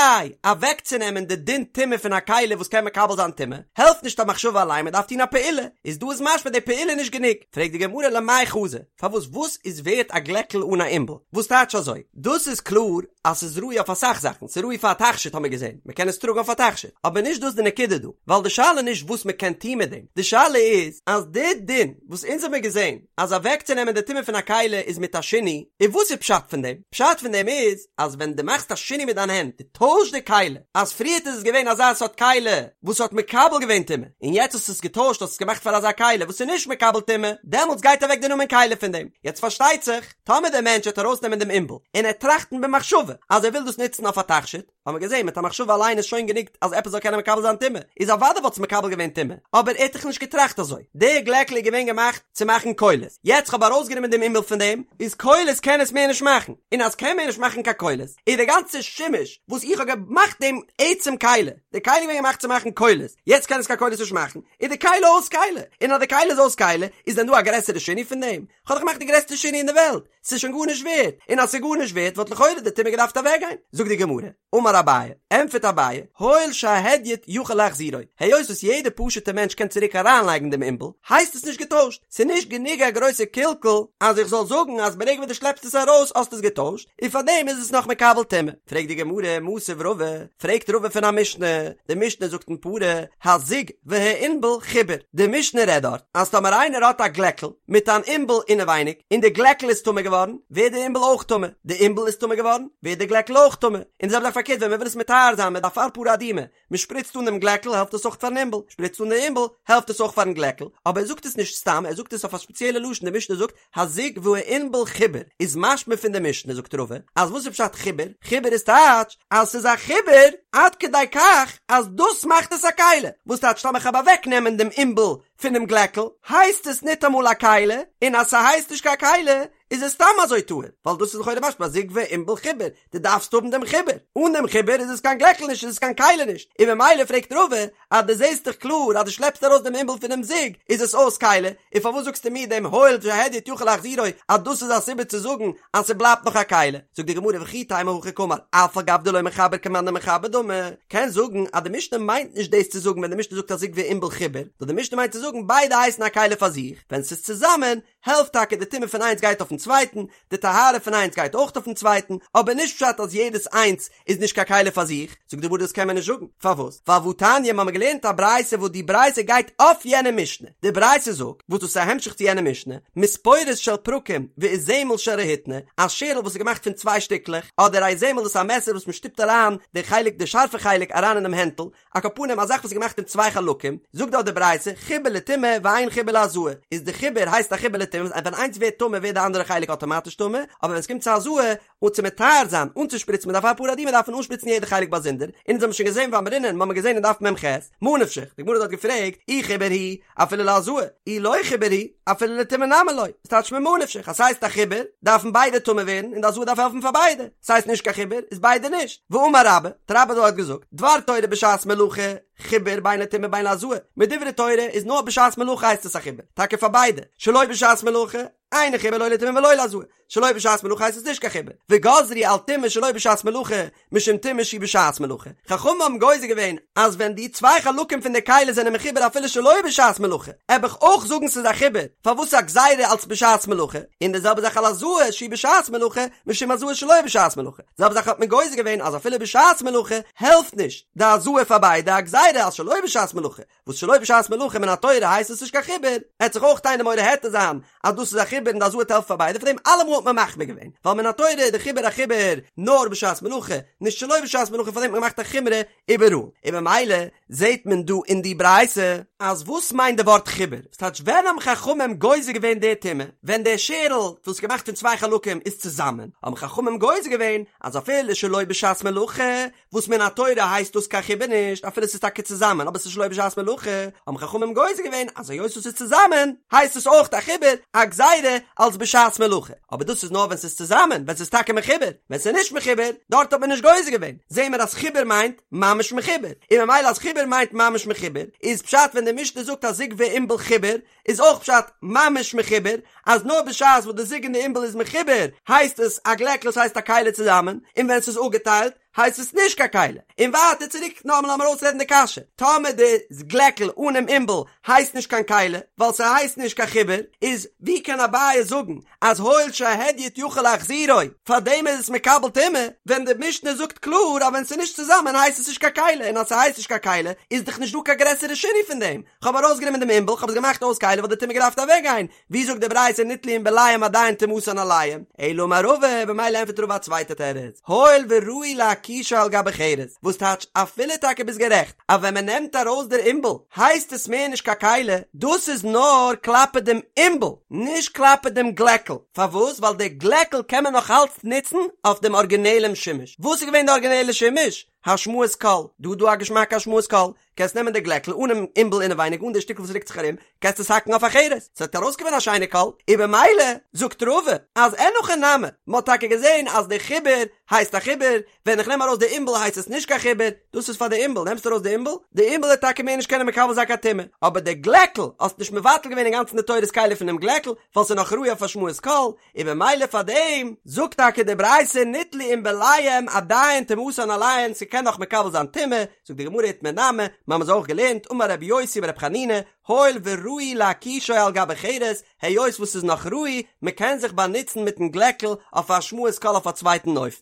אוועקצונעמען די דין טומאה פון א כלי וואס קען מקבל זיין טומאה, העלפט נישט א מחשבה אליין, מ'דארף טון א פעולה, איז דא איז משמע די פעולה איז נישט גענוג, פרעגט די גמרא למאי חזי, פארוואס וואס איז ווערט א גלעקל אן א עינבל? וואס טייטש אזוי? דאס איז קלאר אז ס'איז ראוי אויף אסאך זאכן, ס'איז ראוי פאר א תכשיט האבן מיר געזען, מ'קען עס טראגן אויף א תכשיט, אבער נישט דאס די נקודה דא, ווייל די שאלה איז נישט וואס מ'קען טון מיט דעם, די שאלה איז אז די דין וואס אונז האבן מיר געזען אז אוועקצונעמען די טומאה פון א כלי איז מיט א שינוי, און וואס איז פשט פון דעם? פשט פון דעם איז אז ווען דו מאכסט א שינוי מיט דיין הענט, דו טוישט די כלי, אז פריערט איז עס געווען אזא סארט כלי וואס האט מקבל געווען טומאה, און יעצט האסטו עס געטוישט האסט עס געמאכט פאר אזא כלי וואס איז נישט מקבל טומאה, דעמאלטס גייט אוועק די נאמען כלי פון דעם. יעצט פארשטייט זיך, טאמער דער מענטש וועט ארויסנעמען דעם עינבל, און ער וועט טראכטן במחשבה אז ער וויל דאס נוצן אויף א תכשיט, האבן מיר געזען מיט א מחשבה אליין איז שוין גענוג אז עפעס זאל קענען מקבל זיין טומאה, איז אוודאי וואלט עס מקבל געווען טומאה, אבער ער האט דאך נישט געטראכט אזוי, די גלעקל איז געווען געמאכט צו מאכן קולות, יעצט כ'האב ארויסגענומען דעם עינבל פון דעם, איז קולות קען עס מער נישט מאכן, און אז קען מער נישט מאכן קיין קולות, איז די גאנצע שימוש וואס איך האב געמאכט דעם עצם כלי, די כלי איז געווען געמאכט צו מאכן קולות, יעצט קען עס קיין קולות נישט מאכן, איז די כלי אויס כלי, און אז די כלי איז אויס כלי, איז דען דא א גרעסערע שינוי פון דעם? כ'האב דאך געמאכט די גרעסטע שינוי אין די וועלט, ס'איז שוין גארנישט ווערט, און אז ס'איז גארנישט ווערט וואלט לכאורה די טומאה געדארפט אוועקגיין. זאגט די גמרא, אמר אביי, ענטפערט אביי, הואיל שההדיוט יכול להחזירו, היות וואס יעדער פשוט'ער מענטש קען צוריק אריינלייגן דעם עינבל, הייסט עס נישט געטוישט, ס'איז נישט גענוג א גרויסע קלקול אז איך זאל זאגן אז ברגע וואס דו שלעפסט עס ארויס האסטו עס געטוישט, און פארדעם איז עס נאך מקבל טומאה. פרעגט די גמרא, מתיב רבא, פרעגט רבא פון א משנה, די משנה זאגט אין פרה, הזוג והעינבל חיבור, די משנה רעדט דארט אז טאמער איינער האט א גלעקל מיט אן עינבל אינעווייניג און די גלעקל איז טמא געווארן, ווערט די עינבל אויך טמא, די עינבל איז טמא געווארן, ווערט די גלעקל אויך טמא, און די זעלבע זאך פארקערט ווען מען וויל עס מטהר זיין מיט אפר פרה אדומה, מען שפריצט אן דעם גלעקל העלפט עס אויך פארן עינבל, שפריצט אן די עינבל העלפט עס אויך פארן גלעקל, אבער ער זאגט עס נישט סתם, ער זאגט עס אויף א ספעציעלע לשון, די משנה זאגט הזוג והעינבל חיבור, איז משמע פון די משנה זאגט רבא אז וואס איז פשט חיבור? חיבור איז טייטש אז ס'איז א חיבור עד כדי כך אז דאס מאכט עס א כלי, וואס טייטש טאמער כ'האב אוועק נעמען דעם עינבל פונעם גלעקל הייסט עס ניטאמאל א כלי, און אז ס'הייסט נישט קיין כלי איז עס סתם אזוי טהור, ווייל דאס איז לכאורה משמע הזוג והעינבל חיבור, דו דארפסט האבן דעם חיבור, אן דעם חיבור איז עס קיין גלעקל נישט איז עס קיין כלי נישט, און ממילא פרעגט רבא אז דו זעסט דאך קלאר אז דו שלעפסט ארויס דעם עינבל פונעם זוג איז עס אויס כלי, און פארוואס זאגסטו מיר דעם הואיל שהדיוט יכול להחזירו אז דאס איז א סיבה צו זאגן אז ס'בלייבט נאך א כלי, זאגט די גמרא וכי תימא הכי קאמר אף על גב דלא מחבר כמאן דמחבר דמי, קענסט זאגן אז די משנה מיינט נישט דאס צו זאגן ווען די משנה זאגט הזוג והעינבל חיבור, נאר די משנה מיינט צו זאגן ביידע הייסן א כלי פאר זיך, ווען ס'איז צוזאמען העלפט טאקע די טומאה פון איינס גייט אויפן צווייטן, די טהרה פון איינס גייט אויך אויפן צווייטן, אבער נישט פשט אז יעדעס איינס איז נישט קיין כלי פאר זיך, זאגט די גמרא דאס קען מען נישט זאגן, פארוואס? ווייל והתניא מ'האמיר געלערנט א ברייתא וואס די ברייתא גייט אויף יענע משנה, די ברייתא זאגט, וואס דאס איז א המשך צו יענע משנה, מספורת של פרקים ואיזמל של רהיטני, א שערל וואס איז געמאכט פון צוויי שטיקלעך, אדער א איזמל דאס איז א מעסער וואס מ'שטופט אריין די חלק די שארפע חלק אריין אינעם הענטל, על כל פנים א זאך וואס איז געמאכט אין צוויי חלקים, זאגט דארט די ברייתא, חיבור לטומאה ואין חיבור להזאה, איז די חיבור הייסט א חיבור לטומאה, ווען איינס ווערט טמא ווערט די אנדערע חלק אטאמאטיש טמא, אבער ווען עס קומט צו הזאה, און צו מטהר זיין, אנצושפריצן מיט אפר פרה אדומה דארף מען אנשפריצן יעדע חלק באזונדער, און אונז האבן שוין געזען ואמרינן, מ'האמיר געזען אין דף מ"ח, מה נפשך, די גמרא האט דארט געפרעגט, אי חיבור הוא, אפילו להזאה, אי לא חיבור הוא, אפילו לטומאה נמי לא, ס'טייטש ממה נפשך, אז ס'הייסט א חיבור, דארפן ביידע טמא ווערן, און די הזאה דארף העלפן פאר ביידע. ס'הייסט נישט קיין חיבור, איז ביידע נישט. ואמר רבה, האט רבה דארט געזאגט, דבר תורה בשעת מלאכה, חיבור בין לטומאה בין להזאה. מדברי תורה איז נאר בשעת מלאכה הייסט עס א חיבור, טאקע פאר ביידע, שלא בשעת מלאכה, אינו חיבור לא לטומאה ולא להזאה. שלא בשעת מלאכה הייסט עס נישט קיין חיבור. וגזרו על טומאה שלא בשעת מלאכה, משום טומאה שהיא בשעת מלאכה. חכמים האבן גוזר געווען אז ווען די צוויי חלקים פון די כלי זענען מחובר אפילו שלא בשעת מלאכה, עב איך אויך זאגן ס'איז א חיבור, פארוואס א גזירה אלס בשעת מלאכה, און די זעלבע זאך על הזאה שהיא בשעת מלאכה, משום הזאה שלא בשעת מלאכה. די זעלבע זאך האט מען גוזר געווען אז אפילו בשעת מלאכה העלפט נישט די הזאה פאר ביידע, א גזירה אז שלא בשעת מלאכה, וואס שלא בשעת מלאכה מן התורה הייסט עס נישט קיין חיבור, עט זיך אויך איינער מורה היתר זיין אז דאס איז א חיבור. חיבור און די הזאה וועט העלפן פאר ביידע, פאר דעם אלעמאל האט מען מחמיר געווען, ווייל מן התורה איז די חיבור א חיבור נאר בשעת מלאכה, נישט שלא בשעת מלאכה פאר דעם האט מען געמאכט א חומרא איבעראל, און במילא זעהט מען דא אין די ברייתא אז וואס מיינט די ווארט חיבור? ס'טייטש ווען האבן חכמים גוזר געווען די טומאה? ווען די שערל וואס איז געמאכט פון צוויי חלקים איז צוזאמען, האבן חכמים גוזר געווען אז אפילו שלא בשעת מלאכה, וואס מן התורה הייסט דאס קיין חיבור נישט אפילו ס'איז טאקע צוזאמען אבער ס'איז שלא בשעת מלאכה, האבן חכמים גוזר געווען אז היות עס איז צוזאמען הייסט עס אויך א חיבור, א גזירה, אלס בשעת מלאכה, אבער דאס איז נאר ווען ס'איז צוזאמען, ווען ס'איז טאקע מחובר, ווען ס'איז נישט מחובר, דארט האט מען נישט גוזר געווען, זעהן מיר אז חיבור מיינט ממש מחובר, און ממילא אז חיבור מיינט ממש מחובר, איז פשט ווען די משנה זאגט אז זוג וענבל חיבור, איז אויך פשט ממש מחובר, אז נאר בשעת וואס די זוג און די ענבל איז מחובר הייסט עס א גלעקל ס'הייסט א כלי צוזאמען, און ווען ס'איז אפגעטיילט הייסט עס נישט קיין כלי. און ווייטער צוריק נאכאמאל לאמיר אויסרעדן די קשיא, טאמער די גלעקל אנעם ענבל הייסט נישט קיין כלי ווייל ס'הייסט נישט קיין חיבור, איז ווי קען אביי זאגן אז הואיל שההדיוט יכול להחזירו, פארדעם איז עס מקבל טומאה, ווען די משנה זאגט קלאר אז ווען ס'איז נישט צוזאמען הייסט עס נישט קיין כלי, און אז ס'הייסט נישט קיין כלי איז דאך נישט דא קיין גרעסערע שינוי פון דעם, כ'האב ארויסגענומען דעם ענבל, כ'האב עס געמאכט אויס כלי וואלט די טומאה געדארפט אוועקגיין, ווי זאגט די ברייתא ניטלו ענבליהם עדיין טומאתן עליהם, אלא אמר רבא, במילא ענטפערט רבא א צווייטע תירוץ, הואיל וראוי להקישו על גבי חרס, וואס טייטש אפילו טאקע ביסט גערעכט אז ווען מען נעמט ארויס דער ענבל הייסט עס מער נישט קיין כלי, דאס איז נאר כלפי דעם ענבל, נישט כלפי דעם גלעקל, פארוואס? ווייל דער גלעקל קען מען נאך אלץ נוצן אויף דעם ארגינעלעם שימוש, וואס איז געווען די ארגינעלע שימוש? השמעת קול, דא איז דא א געשמאקע השמעת קול, קענסט נעמען די גלעקל אנעם ענבל אינעווייניג אן די שטיקל וואס רוקט זיך ארום, קענסט עס האקן אויף א חרס, ס'וועט ארויסקומען א שיינע קול, און במילא זאגט רבא אז אין הכי נמי, מ'האט טאקע געזען אז די חיבור הייסט א חיבור, ווען איך נעם ארויס די ענבל הייסט עס נישט קיין חיבור, דאס איז פאר די ענבל, נעמסט ארויס די ענבל, די ענבל וועט טאקע מער נישט קענען מקבל זיין קיין טומאה, אבער די גלעקל האסט נישט מבטל געווען אינגאנצן די תורת כלי פונעם גלעקל, ווייל ס'איז נאך ראוי אויף השמעת קול, און במילא פאר דעם זאגט טאקע די ברייתא ניטלו ענבליהם עדיין טומאתן עליהן ס'קען נאך מקבל זיין טומאה, זאגט די גמרא איתמר נמי, מ'האמיר עס אויך געלערנט, אמר רבי יוסי ברבי חנינא, הואיל וראוי להקישו על גבי חרס, היות וואס ס'איז נאך ראוי, מ'קען זיך באנוצן מיטן גלעקל אויף השמעת קול אויף א צווייטן אופן.